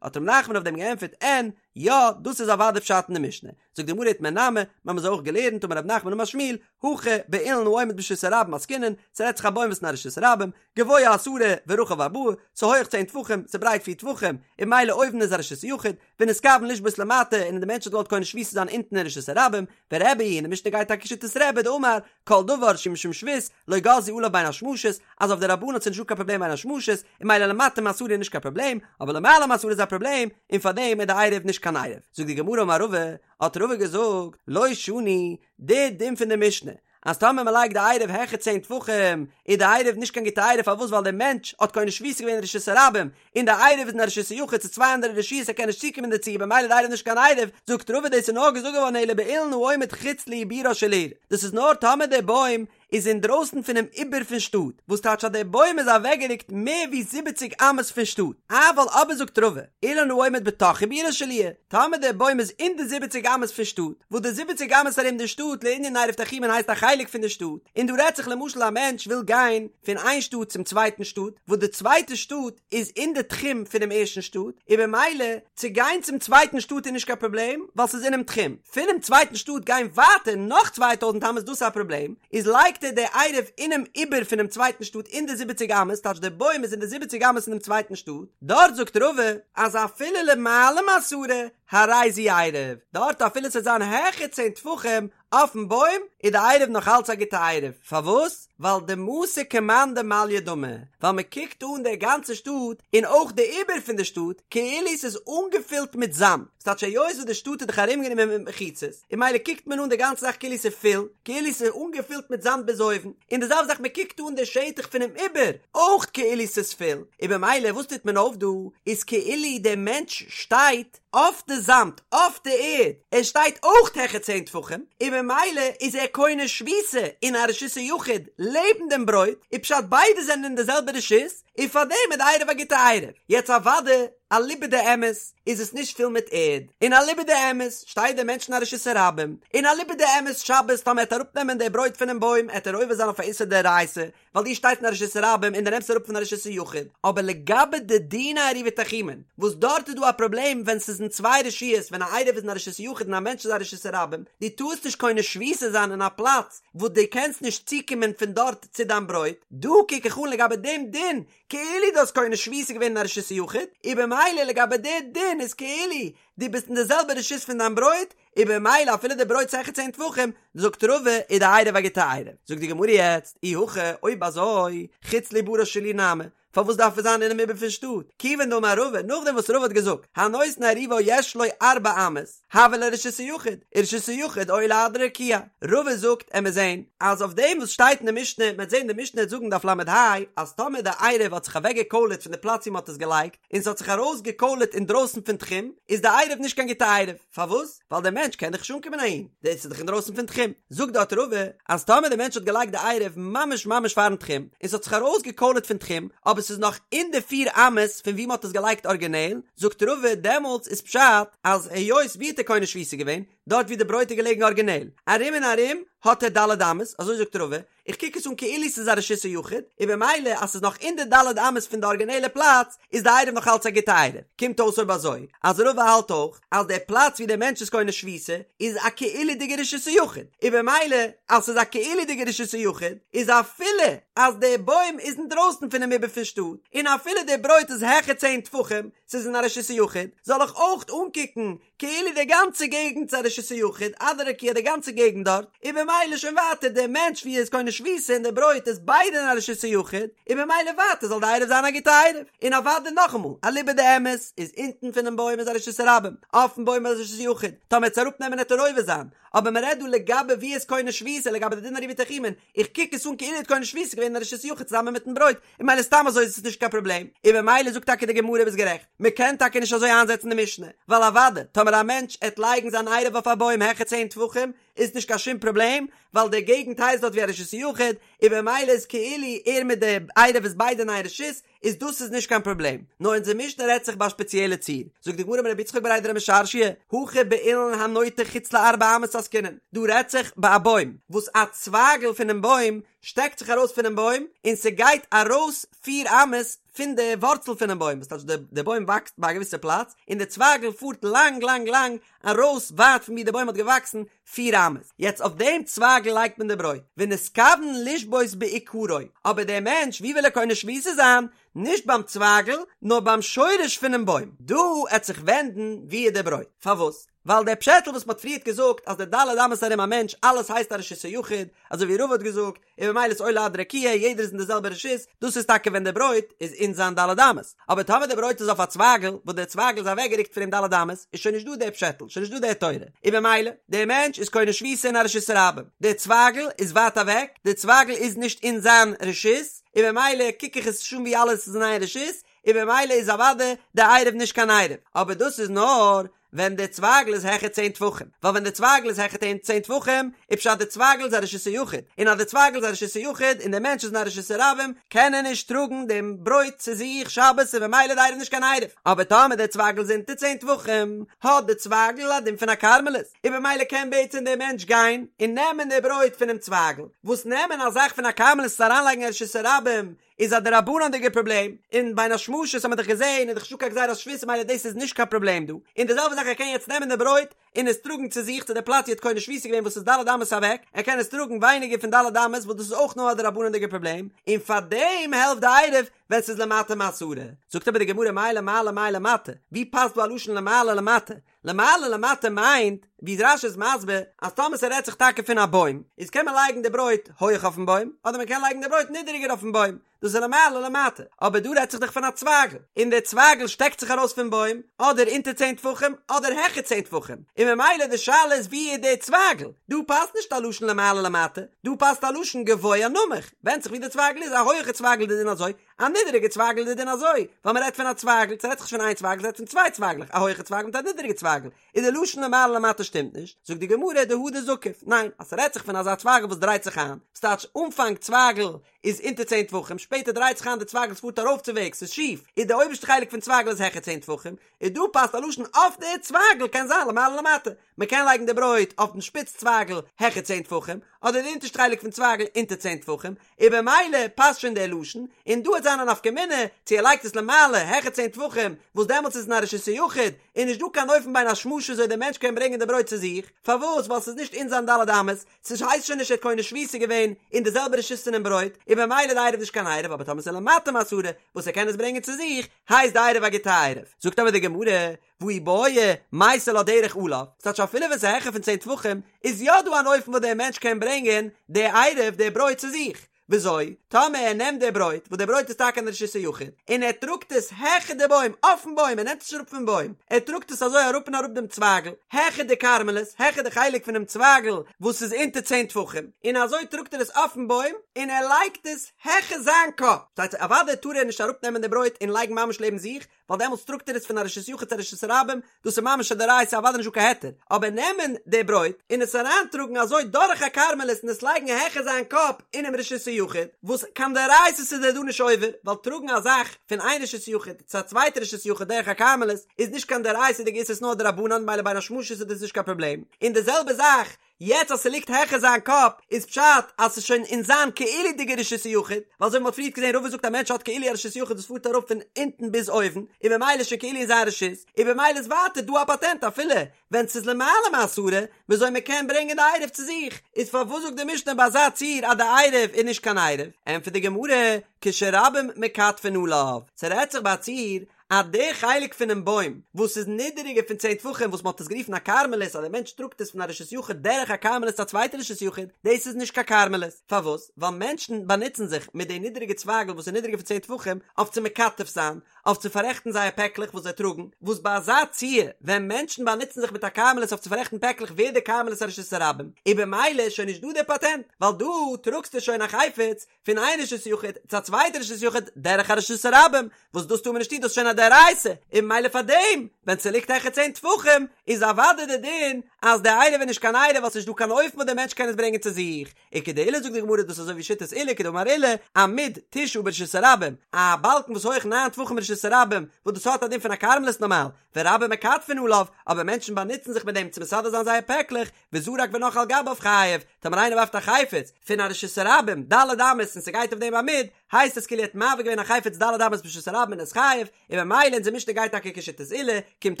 האט ר' נחמן אויף דעם געענטפערט, אין, יא, דאס איז אוודאי פשט אין די משנה. זאגט די גמרא איתמר נמי, מיר האבן אזוי אויך געלערנט, אמר ר' נחמן אמר שמואל, הכא באילן העומד ברשות הרבים עסקינן, ס'רעדט זיך א בוים וואס איז אין א רשות הרבים, גבוה עשרה ורחב ארבעה, ס'הויעך צען טפחים, ס'ברייט פיר טפחים, און ממילא אויבן איז א רשות היחיד, ונתכוון לשבות למטה, און די מענטש האט געוואלט קונה שביתה זיין אונטן אין רשות הרבים, ורבי היא, און די משנה גייט טאקע כשיטת רבי דאמר, כל דבר שהוא משום שבות, לא גזרו עליו בין השמשות, אז אויף דרבנן איז נישטא קיין פראבלעם בין השמשות, און ממילא למטה מעשרה איז נישט קיין פראבלעם, אבער למעלה מעשרה איז א פראבלעם, און פארדעם איז די עירוב נישט קיין עירוב. זאגט די גמרא אמר רבא, האט רבא געזאגט, לא שנו, די דין פון די משנה, אז טאמער מען לייגט די עירוב העכער צען טפחים, איז די עירוב נישט קיין גוטע עירוב, פארוואס ווייל דער מענטש האט קונה שביתה געווען אין רשות הרבים, און די עירוב איז אין א רשות היחיד ס'איז צוויי אנדערע רשויות ער קען נישט צוקומען דערצו במילא איז די עירוב נישט קיין עירוב, זאגט רבא דאס איז נאר געזאגט געווארן אלא באילן העומד חוץ לעיבורה של עיר, דאס איז נאר טאמער דער בוים איז אינדרויסן פונעם עיבור פון שטאט, וואס טייטש אז דער בוים איז אוועקגערוקט מער ווי זיבעציג אמות פון שטאט, אבל אבער זאגט רבא, אילן העומד בתוך עיבורה של עיר, טאמער דער בוים איז אין די זיבעציג אמות פון שטאט, וואס די זיבעציג אמות ארום די שטאט לענין עירוב תחומין הייסט א חלק פון די שטאט, און דא רעדט זיך למשל א מענטש וויל גיין פון איין שטאט צום צווייטן שטאט, וואס די צווייטע שטאט איז אין די תחום פונעם ערשטן שטאט, און במילא צו גיין צום צווייטן שטאט איז נישט קיין פראבלעם, ווייל ס'איז אינעם תחום. פונעם צווייטן שטאט גיין ווייטער נאך צוויי טויזנט אמות דאס איז א פראבלעם, איז לייגט ער די עירוב אינעם עיבור פונעם צווייטן שטאט אין די זיבעציג אמות, טייטש די בוים איז אין די זיבעציג אמות אינעם צווייטן שטאט, דארט זאגט רבא אז אפילו למעלה מעשרה הרי זה עירוב, דארט אפילו ס'וועט זיין העכער צען טפחים אויפן בוים איז די עירוב נאך אלץ א גוטע עירוב, פארוואס? ווייל דמתא כמאן דמליא דמי, ווייל מען קוקט אן די גאנצע שטאט און אויך די עיבור פון די שטאט כאילו ס'איז אנגעפילט מיט זאמד, ס'טייטש היות וואס די שטאט איז דאך ארומגענומען מיט מחיצות, און ממילא קוקט מען אן די גאנצע זאך כאילו ס'איז פול, כאילו ס'איז אנגעפילט מיט זאמד ביז אויבן, און די זעלבע זאך מען קוקט אן די שטח פונעם עיבור אויך כאילו ס'איז פול, און במילא וואס טוט מען אויף דא, איז כאילו דער מענטש שטייט אויף די זאמד, אויף די ערד, ער שטייט אויך העכער צען טפחים, און במילא איז ער קונה שביתה אין א רשות היחיד לעבן דעם ברויט, איז פשט ביידע זענען אין די זעלבע רשות. און פארדעם איז די עירוב א גוטע עירוב. יעצט אוודאי אליבא דאמת איז עס נישט פול מיט ערד, און אליבא דאמת שטייט דער מענטש אין א רשות הרבים, און אליבא דאמת שבת טאמער עט ער אראפנעמען די ברויט פונעם בוים עט ער עובר זיין אויף א איסור דאורייתא, ווייל דו שטייסט אין א רשות הרבים און דו נעמסט אראפ פון א רשות היחיד, אבער לגבי די דיני עירובי תחומין, וואס דארט איז דא א פראבלעם ווען ס'איז אין צוויי רשויות, ווען א עירוב איז אין א רשות היחיד און א מענטש איז א רשות הרבים, דו טארסט נישט קונה שביתה זיין אין א פלאץ וואס דו קענסט נישט צוקומען פון דארט צו דיין ברויט, דא קוק איך אן לגבי דעם דין כאילו דו האסט קונה שביתה געווען אין א רשות היחיד, און במילא לגבי די דין איז כאילו דו ביסט אין די זעלבע רשות פון דיין ברויט, און במילא אפילו די ברויט איז העכער צען טפחים, זאגט רבא, איז די עירוב א גוטע עירוב. זאגט די גמרא יעצט, אי הכי, אויב אזוי, חוץ לעיבורה של עיר נמי, פארוואס דארף עס זיין אינעם עיבור פון שטאט? כיוון דאמר רבא, נאכדעם וואס רבא האט געזאגט, הנותן עירובו יש לו ארבע אמות, הוה ליה רשות היחיד, ורשות היחיד עולה עד רקיע. רבא זאגט, עמיר זעהן, אז אויף דעם וואס שטייט אין די משנה, מ'עט זעהן די משנה וועט זאגן דף ל"ה, אז טאמער די עירוב האט זיך אוועק געקוילערט פון די פלאץ ווי מ'האט עס געלייגט, און ס'האט זיך ארויס געקוילערט אינדרויסן פון תחום, איז די עירוב נישט קיין גוטע עירוב. פארוואס? ווייל דער מענטש קען דאך נישט אנקומען אהין, דאס איז דאך אינדרויסן פון תחום. זאגט דארט רבא, אז טאמער דער מענטש האט געלייגט די עירוב ממש ממש פארן תחום, און ס'האט זיך ארויסגעקוילערט פון תחום, אבער ס'איז נאך אין די פיר אמות פון וואו מ'האט עס געלייגט ארגינעל, זאגט רבא, דעמאלטס איז פשט אז היות וואו האט ער קונה שביתה געווען? דארט וואו די ברויט איז געלעגן ארגינעל, ארום און ארום האט ער ד' אמות, אזוי זאגט רבא, איך קוק עס אן כאילו ס'איז א רשות היחיד, און במילא אז ס'איז נאך אין די ד' אמות פון די ארגינעלע פלאץ, איז די עירוב נאך אלץ א גוטע עירוב. קומט אויס אויב אזוי, אז רבא האלט אויך אז די פלאץ ווי דער מענטש איז קונה שביתה איז א כאילו'דיגע רשות היחיד, און במילא אז ס'איז א כאילו'דיגע רשות היחיד, איז אפילו אז די בוים איז אינדרויסן פונעם עיבור פון שטאט, און אפילו די ברויט איז העכער צען טפחים, ס'איז אין א רשות היחיד, זאל איך אויך אנקוקן כאילו די גאנצע געגנט איז א רשות היחיד, עד הרקיע די גאנצע געגנט דארט, און במילא שוין ווייטער דער מענטש ווי ער איז קונה שביתה און די ברויט איז ביידע אין א רשות היחיד, און במילא ווייטער זאל די עירוב זיין א גוטע עירוב. און אוודאי נאכאמאל, אליבא דאמת איז אונטן פונעם בוים איז א רשות הרבים, אויפן בוים איז א רשות היחיד, טאמער עט עס אראפנעמען עט ער עובר זיין, אבער מען רעדט דא לגבי ווי ער איז קונה שביתה לגבי די דין עירובי תחומין, איך קוק עס אן כאילו ער האט קונה שביתה געווען אין א רשות היחיד צוזאמען מיטן ברויט, און ממילא סתם אזוי איז עס נישט קיין פראבלעם, און ממילא זאגט טאקע די גמרא ביסט גערעכט, מען קען טאקע נישט אזוי איינזעצן די משנה, ווייל אוודאי טאמער א מענטש עט לייגן זיין עירוב אויף א בוים העכער צען טפחים איז נישט קיין שום פראבלעם, ווייל די געגנט הייסט דארט ווי א רשות היחיד, און ממילא איז כאילו ער מיט די עירוב איז ביידע אין איין רשות, איז דאס איז נישט קיין פראבלעם, נאר אונזער משנה רעדט זיך ביי א שפעציעלע ציור, זאגט די גמרא אמר רב יצחק בריה דרב משרשיא, הכא באילן הנוטה חוץ לארבע אמות עסקינן, דא רעדט זיך ביי א בוים, וואס א צווייגל פונעם בוים שטעקט זיך ארויס פונעם בוים, און ס'גייט ארויס פיר אמות פון די ווארצל פונעם בוים, וואס טייטש די בוים וואקסט ביי א געוויסע פלאץ, און די צווייגל פארט לאנג לאנג לאנג ארויס ווייט פון ווי די בוים האט געוואקסן פיר אמות, יעצט אויף דעם צווייגל לייגט מען די ברויט, ונתכוון לשבות בעיקרו, אבער דער מענטש ווי וויל ער קונה שביתה זיין? נישט ביים צווייגל, נאר ביים שורש פונעם בוים, דא עט זיך ווענדן ווי איז די ברויט, פארוואס? ווייל דער פשעטל וואס מ'האט פריערט געזאגט אז די ד' אמות ארום א מענטש אלעס הייסט א רשות היחיד, אזוי ווי רבא האט געזאגט, און ממילא איז עולה עד רקיע, יעדער איז אין די זעלבע רשות, דאס איז טאקע ווען די ברויט איז אין זיין ד' אמות, אבער טאמער די ברויט איז אויף א צווייגל, וואס דער צווייגל איז אוועקגערוקט פונעם ד' אמות, איז שוין נישט דא דער פשעטל, שוין נישט דא דער תורה, און ממילא, דער מענטש איז קונה שביתה אין א רשות הרבים, דער צווייגל איז ווייט אוועק, דער צווייגל איז נישט אין זיין רשות, און ממילא קוק איך עס נישט אן ווי אלעס איז אין איין רשות, און ממילא איז אוודאי די עירוב נישט קיין עירוב, אבער דאס איז נאר ווען די צווייגל איז העכער צען טפחים, ווייל ווען די צווייגל איז העכער צען טפחים, איז פשט די צווייגל איז א רשות היחיד, און אז די צווייגל איז א רשות היחיד און דער מענטש איז אין א רשות הרבים, קען ער נישט טראגן דעם ברויט צו זיך שבת און ממילא איז די עירוב נישט קיין עירוב, אבער טאמער דער צווייגל איז אונטער צען טפחים, האט די צווייגל א דין פון א כרמלית, און ממילא קען בעצם דער מענטש גיין און נעמען די ברויט פונעם צווייגל, וואס נעמען א זאך פון א כרמלית עס אריינלייגן אין רשות הרבים, איז א דרבנן'דיגער פראבלעם, און בין השמשות האט מען דאך געזען איז דאך נישטא קיין גזירת שבות ממילא דאס איז נישט קיין פראבלעם דא, און די זעלבע זאך ער קען יעצט נעמען די ברויט און עס טראגן צו זיך צו די פלאץ ווי ער האט קונה שביתה געווען וואס איז ד' אמות אוועק, ער קען עס טראגן ווייניגער פון ד' אמות וואס דאס איז אויך נאר א דרבנן'דיגער פראבלעם, און פארדעם העלפט די עירוב ווען ס'איז למטה מעשרה. זאגט אבער די גמרא מאי למעלה מאי למטה, ווי פאסט דא א לשון למעלה למטה? למעלה למטה מיינט, ווי רש"י איז מסביר, אז טאמער ס'רעדט זיך טאקע פון א בוים, איז קען מען לייגן די ברויט הויעך אויפן בוים, אדער מען קען לייגן די ברויט נידעריגער אויפן בוים, דאס איז למעלה למטה, אבער דא רעדט זיך דאך פון א צווייגל, און דער צווייגל שטעקט זיך ארויס פון בוים, אדער אונטער צען טפחים, אדער העכער צען טפחים, און ממילא די שאלה איז ווי איז דער צווייגל, דא פאסט נישט א לשון למעלה למטה, דא פאסט א לשון גבוה נמוך, ווענדט זיך ווי די צווייגל איז, א הויעכע צווייגל איז די דין אזוי, א נידעריגע צווייגל איז די דין אזוי, ווייל מען רעדט פון א צווייגל, ס'רעדט זיך נישט פון איין צווייגל, ס'רעדט פון צוויי צווייגלעך, א הויכע צווייגל מיט א נידעריגע צווייגל, איז די לשון למעלה למטה שטימט נישט, זאגט די גמרא דהדר זקיף, ניין, אז ס'רעדט זיך פון אזא צווייגל וואס דרייט זיך איין, ס'טייטש אנפאנג צווייגל איז אונטער צען טפחים, שפעטער. שפעטער דרייט זיך איין די צווייגל ס'פארט ארויף צו וועגס ס'איז שיף, איז די אויבערשטע חלק פון צווייגל איז העכער צען טפחים, איז דא פאסט א לשון אויף די צווייגל קען זיין למעלה למטה, מ'קען לייגן די ברויט אויף דעם שפיץ צווייגל העכער צען טפחים, אדער די אונטערשטע חלק פון צווייגל אונטער צען טפחים, און במילא פאסט שוין דער לשון, און דא וועט זיין א נפקא מינה צו ער לייגט עס למעלה העכער צען טפחים, וואס דעמאלטס איז אין א רשות היחיד, און נישט דא קיין אופן בין השמשות וויאזוי דער מענטש קען ברענגען די ברויט צו זיך, פארוואס? ווייל ס'איז נישט אין זיין ד' אמות, ס'הייסט שוין נישט ער האט קונה שביתה געווען אין די זעלבע רשות פונעם ברויט, און במילא איז די עירוב נישט קיין עירוב, אבער טאמער ס'איז למטה מעשרה וואס ער קען עס ברענגען צו זיך, הייסט די עירוב א גוטע עירוב. זאגט אבער די גמרא, והא אי בעי מייתי לה דרך עליו, ס'טייטש אפילו ווען ס'איז העכער פון צען טפחים, איז יא דא אן אופן וואס דער מענטש קען ברענגען די עירוב, די ברויט צו זיך. וויאזוי? טאמער ער נעמט די ברויט, וואס די ברויט איז טאקע אין רשות היחיד, און ער טראגט עס העכער די בוים, אויפן בוים, ער נעמט עס נישט אראפ פון בוים, ער טראגט עס אזוי אראפ און אראפ דעם צווייגל, העכער די כרמלית, העכער די חלק פונעם צווייגל וואס איז אונטער צען טפחים, און אזוי טראגט ער עס אויפן בוים, און ער לייגט עס העכער זיין קאפ. ס'טייטש אוודאי טאר ער נישט אראפנעמען די ברויט און לייגן ממש לעבן זיך, ווייל דעמאלטס טראגט ער עס פון א רשות יחיד צו א רשות הרבים, דאס איז ממש א דאורייתא אוודאי נישט דא קיין היתר, אבער נעמען די ברויט און עס אריינטראגן אזוי דורך א כרמלית און עס לייגן העכער זיין קאפ אינעם רשות היחיד, וואס קיין דאורייתא'ס איז ער דא נישט עובר, ווייל טראגן א זאך פון איין רשות יחיד צו א צווייטע רשות יחיד דורך א כרמלית איז נישט קיין דאורייתא'דיגע איסור ס'איז נאר דרבנן ממילא בין השמשות איז דאס נישט קיין פראבלעם, און די זעלבע זאך יעצט אז ס'ליגט העכער זיין קאפ איז פשט אז ס'איז שוין אין זיין כאילו'דיגע רשות היחיד, ווייל אזוי ווי מ'האט פריערט געזען רבא זאגט א מענטש האט כאילו א רשות יחיד וואס פארט אראפ פון אונטן ביז אויבן, און במילא איז שוין כאילו אין זיין רשות, און במילא איז ווייטער דא א פאטענט אפילו ווען ס'איז למעלה מעשרה וויאזוי מ'קען ברענגען די עירוב צו זיך, איז פארוואס זאגט די משנה ביי אזא ציור אז די עירוב איז נישט קיין עירוב? ענטפערט די גמרא, כשרבים מכתפין עליו, ס'רעדט זיך ביי א ציור אז די חלק פונעם בוים וואס איז נידעריגער פון צען טפחים וואס מ'האט עס גערופן א כרמלית אז דער מענטש טראגט עס פון א רשות יחיד דורך א כרמלית צו א צווייטע רשות יחיד, דאס איז נישט קיין כרמלית. פארוואס? ווייל מענטשן באנוצן זיך מיט די נידעריגע צווייגל וואס איז נידעריגער פון צען טפחים אויף צו מכתף זיין, אויף צו פאררעכטן זייער פעקלעך וואס זיי טראגן, וואס ביי אזא ציור ווען מענטשן באנוצן זיך מיט א כרמלית אויף צו פאררעכטן פעקלעך ווערט די כרמלית א רשות הרבים, און במילא איז שוין נישט דא די פאטענט, ווייל דא טראגסטו שוין א חפץ פון איין רשות יחיד צו א צווייטע רשות יחיד דורך א רשות הרבים, וואס דאס טאר מען נישט טון דאס איז שוין א דאורייתא, און ממילא פאר דעם ווען ס'ליגט העכער צען טפחים איז אוודאי די דין אז די עירוב איז נישט קיין עירוב ווייל ס'נישט דא קיין אופן וואס דער מענטש קען עס ברענגען צו זיך, וכדעולא זאגט די גמרא דאס איז אזוי ווי שיטת עולא כדאמר עולא, עמוד תשעה ברשות הרבים, א באלקן וואס הויך ניין טפחים ברשות הרבים, וואס דאס האט א דין פון א כרמלית נארמאל, ורבים מכתפין עליו, אבער מענטשן באנוצן זיך מיט דעם צו מסדר זיין זייער פעקלעך, וזרק ונח על גביו חייב, טאמער איינער ווארפט א חפץ פון א רשות הרבים ד' אמות און ס'גייט אויף דעם עמוד, הייסט עס כאילו ער האט מעביר געווען א חפץ ד' אמות ברשות הרבים און איז חייב, און ממילא אונזער משנה גייט טאקע כשיטת עולא, קומט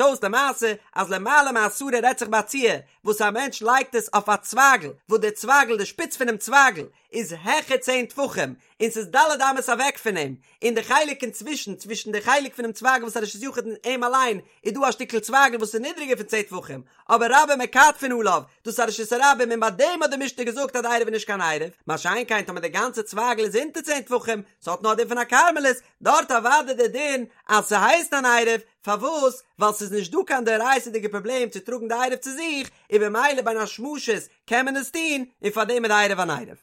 אויס למעשה אז למעלה מעשרה רעדט זיך ביי א ציור וואס א מענטש לייגט עס אויף א צווייגל וואס די צווייגל די שפיץ פונעם צווייגל איז העכער צען טפחים און ס'איז ד' אמות אוועק פון אים, און די חלק אינצווישן, צווישן די חלק פונעם צווייגל וואס איז א רשות יחיד און אים אליין, איז דא א שטיקל צווייגל וואס איז נידריגער פון צען טפחים, אבער רבים מכתפין עליו, דאס איז א רשות הרבים און ביי דעם האט די משנה געזאגט אז די עירוב איז נישט קיין עירוב, מה שאין כן טאמער די גאנצע צווייגל איז אונטער צען טפחים, ס'האט נאר א דין פון א כרמלית, דארט אוודאי די דין אז ס'הייסט אן עירוב, פארוואס? ווייל ס'איז נישט דא קיין דאורייתא'דיגע פראבלעם צו טראגן די עירוב צו זיך, און במילא בין השמשות קען מען עס טון, און פארדעם איז די עירוב אן עירוב.